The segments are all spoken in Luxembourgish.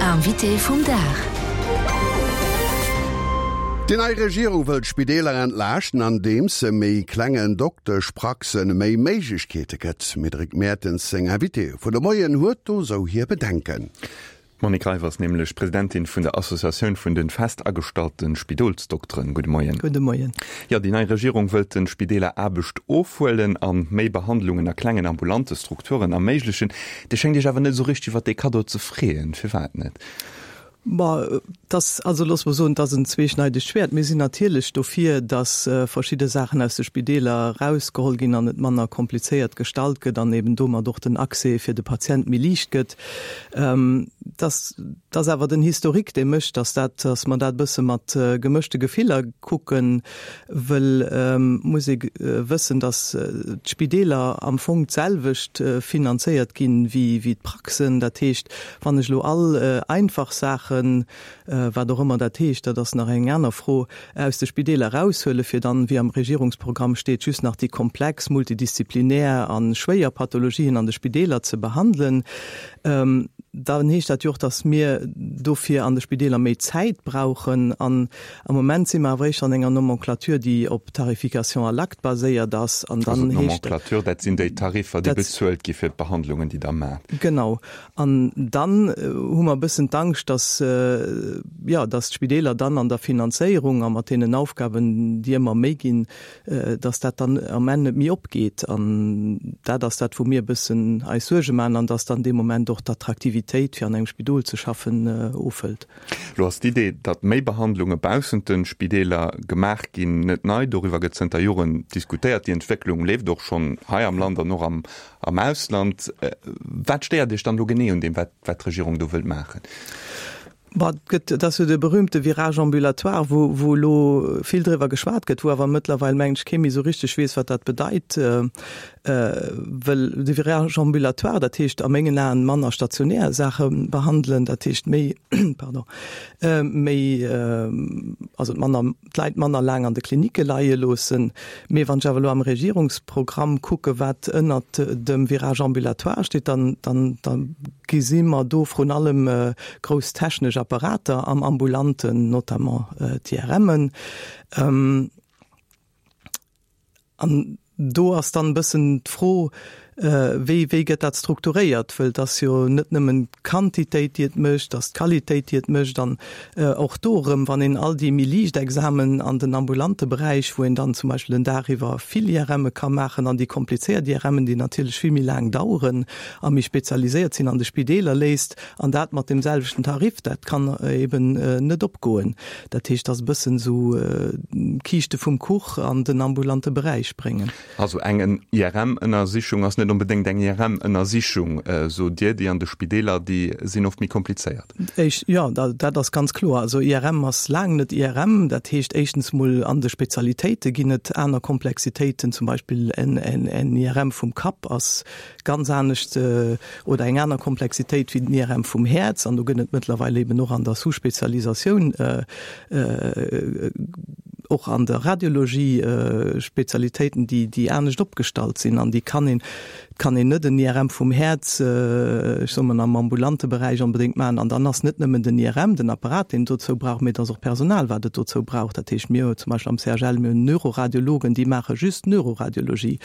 Invité vum Dag. Déi nei Regierung wëll d'Spideeler entlaaschten, andeems se méi klengen Dokteschpraxen méi Méiglechkeete gëtt. D'Médéric Mertens, seng Invitée vun de Moien, huet do sou hir Bedenken. D'Monique Reiff ass nämlech Presidentin vun der Associatioun vun de fest agestallte Spidolsdokteren. Gudde Moien. Gudde Moien. Jo, déi nei Regierung wëllt de Spideeler Aarbecht ofhuelen a méi Behandlungen a klengen ambulante Strukturen erméiglechen. Dir schéngt Iech awer net esou richteg iwwer dee Kaddo ze freeën. Firwat net? Ma et ass, also loosse mer soen, et ass en zweeschneidegt Schwäert. Mir sinn natierlech dofir, datt verschidde Saachen aus de Spideeler erausgeholl ginn an et manner komplizéiert gestalt gëtt an eben domat och den Accès fir de Patient méi liicht gëtt. Et ass, et ass awer den Historique, dee mécht, datt dat, datt mer dat e bësse mat gemëschte Gefiller kucken, wëll muss ee wëssen, datt d'Spideeler am Fong d'selwecht finanzéiert ginn wéi, wéi d'Praxen. Dat heescht, Wann ech elo all einfach Saachen, wat och ëmmer dat heescht, dat ass nach eng aner Fro, aus de Spideeler eraushuelen, fir dann, wéi am Regierungsprogramm steet, just nach déi komplex, multidisziplinär a schwéier Pathologien an de Spideeler ze behandelen, dann heescht dat jo och, dass mir dofir an de Spideeler méi Zäit brauchen. An Am Moment si mer awer éischter an enger Nomenclature, déi op Tarification à l'acte baséiert ass. An dann heescht. Also d'Nomenclature, dat sinn déi Tariffer, déi bezuelt gi fir d'Behandlungen, déi Der maacht. Genau. An dann hu mer e bëssen d'Angscht, dass, jo, dass d'Spideeler dann an der Finanzéierung a mat deenen Aufgaben, déi ëmmer méi ginn, dass dat dann am Enn net méi opgeet. An dat ass dat, wou mir e bëssen eis Suerge maachen an dass dann dee Moment och d'Attraktivitéit, fir an engem Spidol ze schaffen, ofhëlt. Lo ass d'Idee, datt méi Behandlunge baussent de Spideeler gemaach ginn, net nei. Doriwwer gëtt zënter Joren diskutéiert. Déi Entwécklung leeft och schonn hei am Land an och am Ausland. Wat stéiert Iech dann elo genee un deem, wat d'Regierung do wëllt maachen? Bon, et gëtt, et ass jo de berühmte Virage ambulatoire, wou, wou elo vill driwwer geschwat gëtt, wou awer mëttlerweil, mengen ech, kee méi esou richteg weess, wat dat bedeit. Well de Virage ambulatoire, dat heescht a mengen Aen manner stationär Saache behandelen, dat heescht méi, pardon, méi, also manner, d'Leit manner laang an de Klinicke leie loossen. Mee wann ech awer elo am Regierungsprogramm kucke wat ënnert dem Virage ambulatoire steet, dann, dann, da gesi mer do vrun allem grouss technesch Apparater am Ambulanten, notamment d'IRMen. An do ass dann e bëssen d'Fro, wéi, wéi gëtt dat strukturéiert? Wëll et ass jo net nëmmen d'Quantitéit, déi et mécht, et ass d'Qualitéit, déi et mécht. An och do erëm, wann een all déi méi liicht Examen an den ambulante Beräich, wou een dann zum Beispill den Dag iwwer vill IRMe ka maachen, an déi komplizéiert IRMen, déi natierlech vill méi laang daueren a méi spezialiséiert sinn, an de Spideeler léisst, an dat mat deem selwechten Tarif, dat kann eben net opgoen. Dat heescht, dass e bëssen esou d'Kiischte vum Kuch an den ambulante Beräich bréngen. Also eng IRM-Ënnersichung ass net onbedéngt eng IRM-Ënnersichung, sot Dir. Déi an de Spideeler, déi sinn oft méi komplizéiert. Éischt, jo, dat ass ganz kloer. Also IRM ass laang net IRM. Dat heescht éischtens mol an de Spezialitéite ginn et aner Komplexitéiten. Zum Beispill en IRM vum Kapp ass ganz anescht oder eng aner Komplexitéit wéi den IRM vum Häerz. An do gëtt et mëttlerweil eben och an der Sous-Spezialisatioun, och an der Radiologie Spezialitéiten, déi, déi anescht opgestallt sinn. An déi kann een, et kann een net en IRM vum Häerz, ech soe mol, am ambulante Beräich onbedéngt maachen. An dann ass net nëmmen den IRM, den Apparat, deen et dozou brauch, mee et ass och Personal, wat et dozou brauch. Dat heescht, mir hu zum Beispill am CHL, mir hunn Neuroradiologen, déi maache just Neuroradiologie.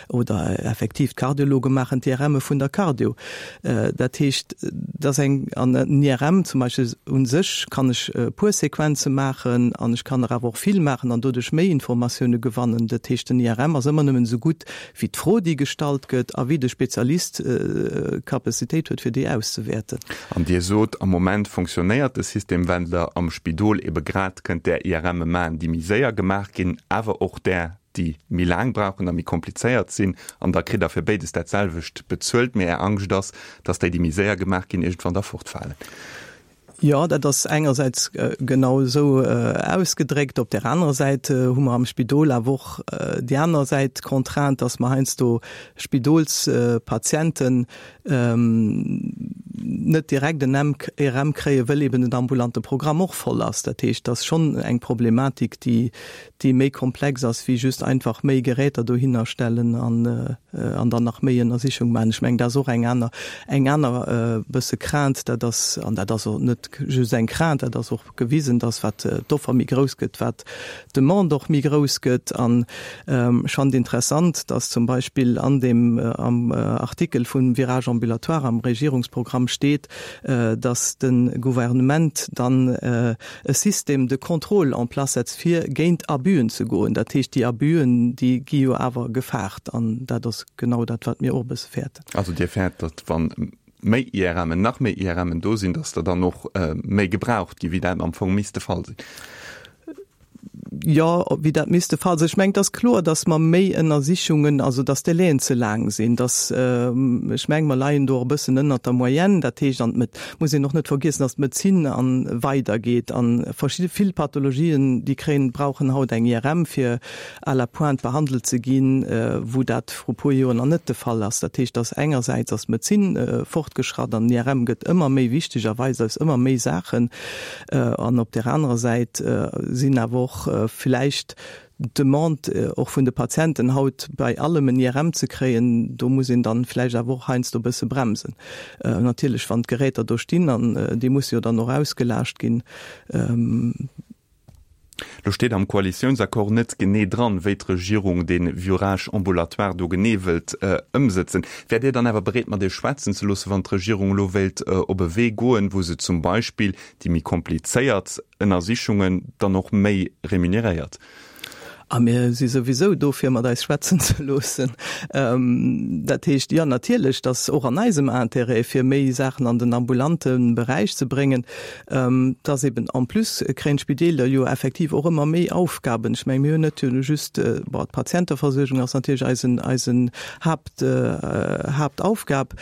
Oder effektiv d'Kardiologe maachen d'IRMe vun der Cardio. Dat heescht, dass eng, an en IRM zum Beispill u sech kann ech e puer Sequenze maachen an ech kann der awer och vill maachen an doduerch méi Informatioune gewannen. Dat heescht, den IRM ass ëmmer nëmmen esou gutt wéi d'Fro, déi gestallt gëtt a wéi de Spezialist d'Capacitéit huet, fir déi auszewäerten. An Dir sot, am Moment fonctionnéiert de System Wendler am Spidol ebe grad, kënnt där IRMe maachen, déi méi séier gemaach ginn, awer och där, déi méi laang brauchen a méi komplizéiert sinn, an da kritt Der fir béides dat selwecht bezuelt, mee Är Angscht ass, dass déi, déi méi séier gemaach ginn, iergendwann da fortfalen. Jo, dat ass engersäits genau esou ausgedréckt. Op där anerer Säit hu mer am Spidol awer och déi aner Säit, d'Contrainte, dass mer heiansdo Spidolspatienten. net direkt en IRM kréien, wëll eben den ambulante Programm och voll ass. Dat heescht, dat ass schonn eng Problematik, déi, déi méi komplex ass wéi just einfach méi Geräter dohinner stellen an, an dann nach méi Ënnersichung maachen. Ech mengen, dat ass och eng aner, eng aner bësse Crainte, dat ass, an dat ass och net just eng Crainte, dat ass och gewisen, dass wat d'Offer méi grouss gëtt, wat d'Demande och méi grouss gëtt. An ech fand interessant, dass zum Beispill an deem am Artikel vum Virage ambulatoire am Regierungsprogramm steet, dass de Gouvernement dann e Système de contrôle en place setzt, fir géint Abüen ze goen. Dat heescht, déi Abüen, déi gi jo awer gefaart. An dat ass genau dat, wat mir och e bësse fäerten. Also Dir fäert, datt wa méi IRMen, nach méi IRMen do sinn, datt der dann och méi gebraucht ginn, wéi dat am Fong misst de Fall sinn? Jo, wéi dat misst de Fall sinn. Ech mengen, et ass kloer, datt mer méi Ënnersichungen, also datt d'Délaiën ze laang sinn, datt, ech mengen, mer leien do och e bëssen ënnert der Moyenne. Dat heescht, an et muss een och net vergiessen, datt d'Medezin a weidergeet a verschidde vill Pathologien, déi kréien, brauchen haut eng IRM, fir à la pointe behandelt ze ginn, wou dat vru puer Joer nach net de Fall ass. Dat heescht, datt engersäits ass d'Medezin fortgeschratt an den IRM gëtt ëmmer méi wichteg a weist eis ëmmer méi Saachen. An op där anerer Säit sinn awer och vläicht d'Demande och vun de Patienten haut bei allem en IRM ze kréien, do muss een dann vläicht awer och heiansdo e bësse bremsen. Natierlech wann d'Geräter do stinn an déi musse jo dann och ausgelaascht ginn. Lo steet am Koalitiounsaccord net genee dran, wéi d'Regierung dee Virage ambulatoire do genee wëllt ëmsëtzen. Wäert Dir dann awer bereet, mat Iech schwätzen ze loossen, wann d'Regierung elo wéilt op e Wee goen, wou se zum Beispill déi méi komplizéiert Ënnersichungen dann och méi remuneréiert? A mir si souwisou do, fir mat eis schwätzen ze loossen. Dat heescht, jo, natierlech, et ass och an eisem Intérêt, fir méi Saachen an den ambulante Beräich ze bréngen. Et ass eben, en plus kréien d'Spideeler jo effektiv och ëmmer méi Aufgaben. Ech mengen, mir hunn net just, bon, d'Patienteversuergung ass natierlech eisen, eisen Haapt, Haaptaufgab,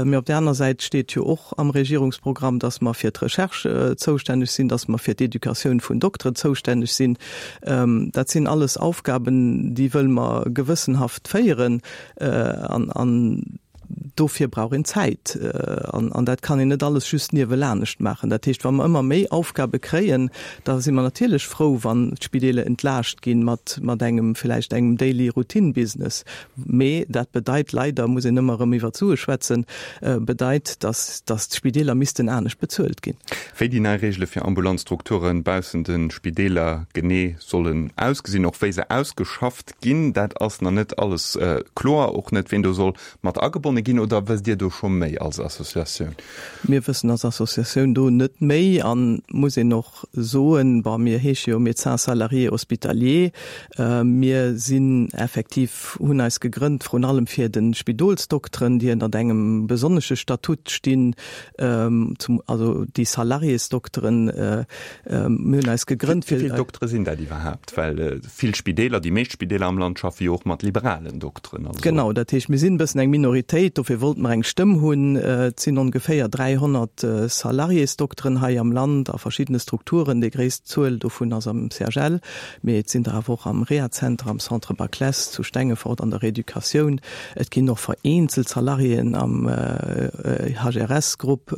Mee op där aner Säit steet jo och am Regierungsprogramm, dass mer fir d'Recherche zoustänneg sinn, dass mer fir d'Educatioun vun Dokteren zoustänneg sinn. Dat sinn alles Aufgaben, déi wëlle mer gewëssenhaft féieren. An dofir brauch een Zäit. An dat kann een net alles just niewelanescht maachen. Dat heescht, wa mer ëmmer méi Aufgabe kréien, da si mer natierlech frou, wann d'Spideeler entlaascht ginn mat engem vläicht engem Daily Routine Business. Mee dat bedeit leider, muss een ëmmer erëm iwwer d'Sue schwätzen, bedeit, dass dass d'Spideeler missten anescht bezuelt ginn. Wéi déi nei Reegele fir ambulant Strukture baussent de Spideeler genee sollen ausgesinn, och wéi se ausgeschafft ginn, dat ass nach net alles kloer. Och net, ween do soll mat agebonne ginn. Oder wësst Dir do scho méi als Associatioun? Mir wëssen als Associatioun do net méi an, muss een och soen, bon, mir heesche jo Médecins salariés hospitaliers, mir sinn effektiv, hunn eis gegrënnt vrun allem fir de Spidolsdokteren, déi ënnert engem besonnesche Statut stinn, zum, also déi Salariésdokteren, mir hunn eis gegrënnt fir. Wéi vill Doktere sinn dat iwwerhaapt? Well vill Spideeler, déi meescht Spideeler am Land schaffe jo och mat liberalen Dokteren. Also. Genau, dat heescht, mir sinn e bëssen eng Minoritéit, dofir wollte mer eng Stëmm hunn. Et sinn ongeféier 300 Salariésdokteren hei am Land a verschiddene Strukturen. Déi gréisst Zuel dovun ass am CHL, mee et sinn der awer och am Rehazenter, am Centre Baclesse zu Stengefort, an der Reeducatioun. Et ginn och vereenzelt Salariéen am HRS-Grupp.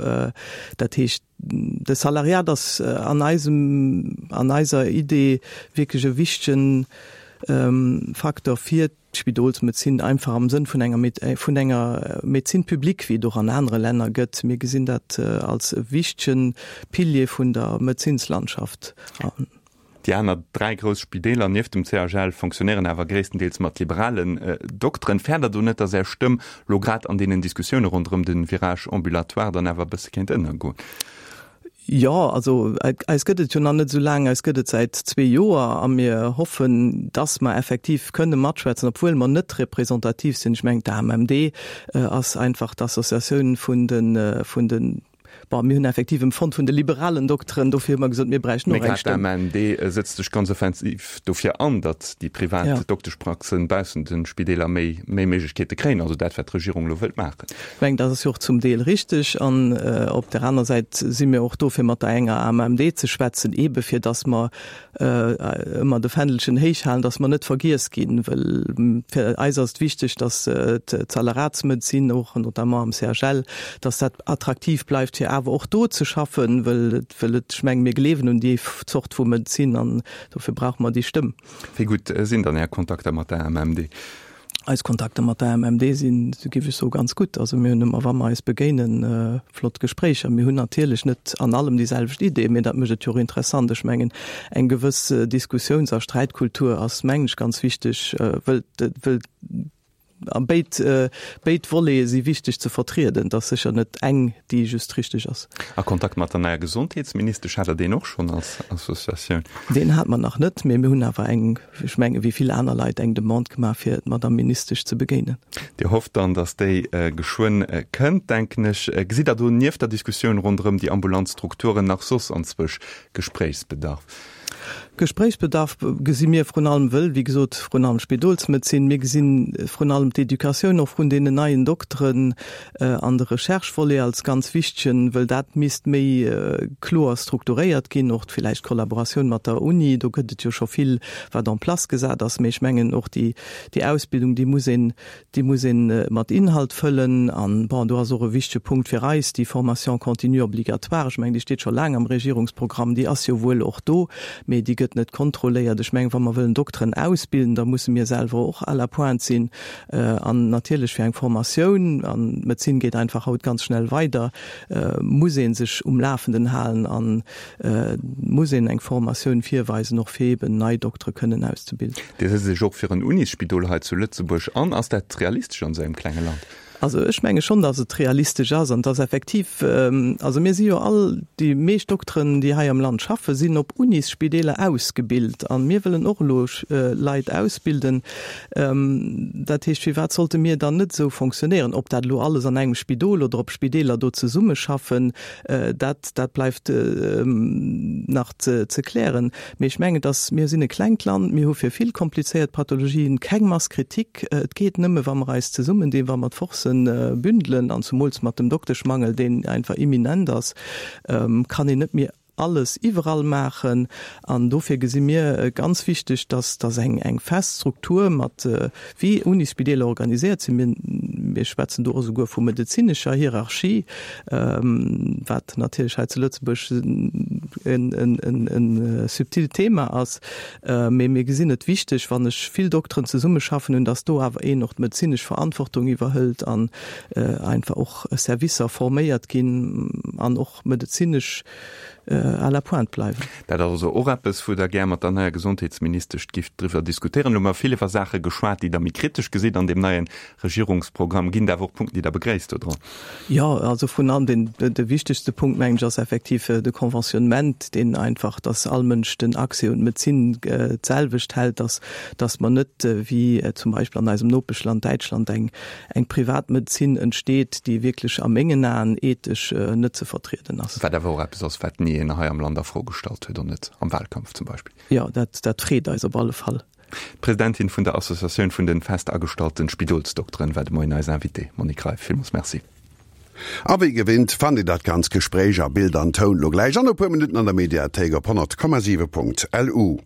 Dat heescht, de Salariat ass an eisem, an eiser Idee wierklech e wichtegen Facteur fir d'Spidolsmedezin, einfach am Sënn vun enger, vun enger Médecine publique, wéi et och an anere Länner gëtt. Mir gesinn dat als e wichtege Pilier vun der Medezinslandschaft. Déi aner 3 grouss Spideeler nieft dem CHL fonctionnéieren awer gréisstendeels mat liberalen Dokteren. Fäert der do net, datt Är Stëmm lo grad an deenen Diskussioune ronderëm de Virage ambulatoire dann awer e bësse kéint ënnergoen? Jo, also eis gëtt et jo nach net esou laang, eis gëtt et säit zwee Joer a mir hoffen, datt mer effektiv kënne matschwätzen, obwuel mer net representativ sinn. Ech mengen, d'AMMD ass einfach d'Associatioun vun de, vun de. Bon, mir hunn effektiv empfonnt vun de liberalen Dokteren, dofir hu mer gesot, mir bräichten och eng Stëmm. Mee grad d'AMMD sëtzt sech ganz offensiv dofir an, datt déi privat Dokteschpraxen baussent de Spideeler méi méi Méiglechkeete kréien, also dat wat d'Regierung elo wëllt maachen. Ech mengen, dat ass jo och zum Deel richteg. An op där aner Säit si mir och do fir mat der enger AMMD ze schwätzen, eebe fir datt mer ëmmer de Fändelchen héich halen, dass mer net vergiess ginn, well fir eis ass et wichteg, dass d'Salaratsmedezin och, notamment am CHL, dass dat attraktiv bleift, fir awer och do ze schaffen, well et, well et, ech mengen, mir gleewen un déi Zort vu Medezin an dofir brauche mer déi Stëmm. Wéi gutt sinn dann Är Kontakter mat der AMMD? Eis Kontakter mat der AMMD sinn, géif ech soen, ganz gutt. Also mir hunn ëmmer, wa mer eis begéinen, flott Gespréicher. Mir hunn natierlech net an allem déi selwecht Ideen, mee dat mécht et jo och interessant. Ech mengen, eng gewëss Diskussiouns a Sträitkultur ass, mengen ech, ganz wichteg, wëll, wëll a béid, béid Volete si wichteg ze vertrieden. Et ass sécher net eng, déi just richteg ass. A Kontakt mat der neier Gesondheetsministesch, hat Der deen och schonn als Associatioun? Deen hate mer nach net, mee mir hunn awer eng ech menge wéi vill aner Leit, eng Demande gemaach, fir d'Madame Ministesch ze begéinen. Dir hofft dann, datt déi geschwënn kënnt, denken ech. Gesitt Der do nieft der Diskussioun ronderëm déi ambulant Strukturen nach soss anzwousch Gespréichsbedarf? Gespréichsbedarf gesi mir vrun allem, wëll, wéi gesot, vrun allem Spidolsmedezin, mir gesi vrun allem d'Educatioun och vun deenen neien Dokteren, an de Recherche-Volet als ganz wichtegen, wëll dat misst méi kloer strukturéiert ginn, och villäicht d'Kollaboratioun mat der Uni, do gëtt et jo scho vill, wat en place gesat ass, mee ech mengen och déi, déi Ausbildung, déi muss een, déi muss ee mat Inhalt fëllen. An, bon, do ass och e wichtege Punkt fir eis déi Formation continue obligatoire, ech mengen, déi steet scho laang am Regierungsprogramm, déi ass jo wuel och do, mee déi gëtt net kontrolléiert. Ech mengen, wa mer wëllen Dokteren ausbilden, da musse mir selwer och à la pointe sinn. An natierlech fir eng Formatioun, an d'Medezin geet einfach haut ganz schnell weider, muss ee sech um Lafenden halen a muss een eng Formatioun virweisen, och fir eeben nei Doktere kënnen auszebilden. Dir setzt Iech och fir en Unisspidol hei zu Lëtzebuerg an. Ass dat realistesch an esou engem klenge Land? Also ech menge schonn, datt et realistesch ass an dass effektiv, also mir si jo all, déi meescht Dokteren, déi hei am Land schaffen, sinn op Unisspideeler ausgebilt a mir wëllen och elo Leit ausbilden. Dat heescht, firwat sollte mir dann net esou fonctionnéieren? Ob dat elo alles an engem Spidol oder ob Spideeler do zesummeschaffen, dat, dat bleift nach ze klären. Mee ech mengen, dass, mir sinn e klengt Land, mir hu fir vill komplizéiert Pathologien keng Masse critique. Et geet nëmme, wa mer eis zesummendinn, wa mer d'Forcen bündelen, an zumools mat dem Dokteschmangel, deen einfach imminent ass, kann een net méi alles iwwerall maachen. An dofir gesi mir ganz wichteg, dass, dass eng, eng fest Struktur mat, wéi Unisspideeler organiséiert sinn, mir, mir schwätzen do och esouguer vu medezinescher Hierarchie, wat natierlech hei zu Lëtzebuerg e subtilt Thema ass, mee mir gesinn et wichteg, wann ech vill Dokteren zesummeschaffen hunn, dass do awer een och d'medezinesch Verantwortung iwwerhëlt an einfach och Servicer forméiert ginn an och medezinesch à la pointe bleiwen. Dat ass also och eppes, wou Der gär mat der neier Gesondheetsministesch gifft driwwer diskutéieren. Elo hu mer vill iwwer Saache geschwat, déi Der méi kritesch gesitt an deem neie Regierungsprogramm. Ginn et awer och Punkten, déi Der begréisst dodran? Jo, also vrun allem deen, de wichtegste Punkt, mengen ech, ass effektiv de Conventionnement, deen einfach, dass all Mënsch den Accès un d'Medezin d'selwecht hält, dass, dass mer net wéi zum Beispill an eisem Nopeschland Däitschland eng, eng Privatmedezin entsteet, déi wierklech a mengen Aen ethesch net ze vertrieden ass. Wat awer och eppes ass, wat ni een hei am Land a Fro gestallt huet, och net am Wahlkampf zum Beispill. Jo, dat, dat freet eis op alle Fall. D'Presidentin vun der Associatioun vun den fest agestallte Spidolsdokteren war de Moien eis Invitée. Monique Greif, villmools Merci. A wéi gewinnt fannt Dir dat ganz Gespréich a Bild an Toun lo gläich an e puer Minutten an der Mediathéik op 100,7.lu.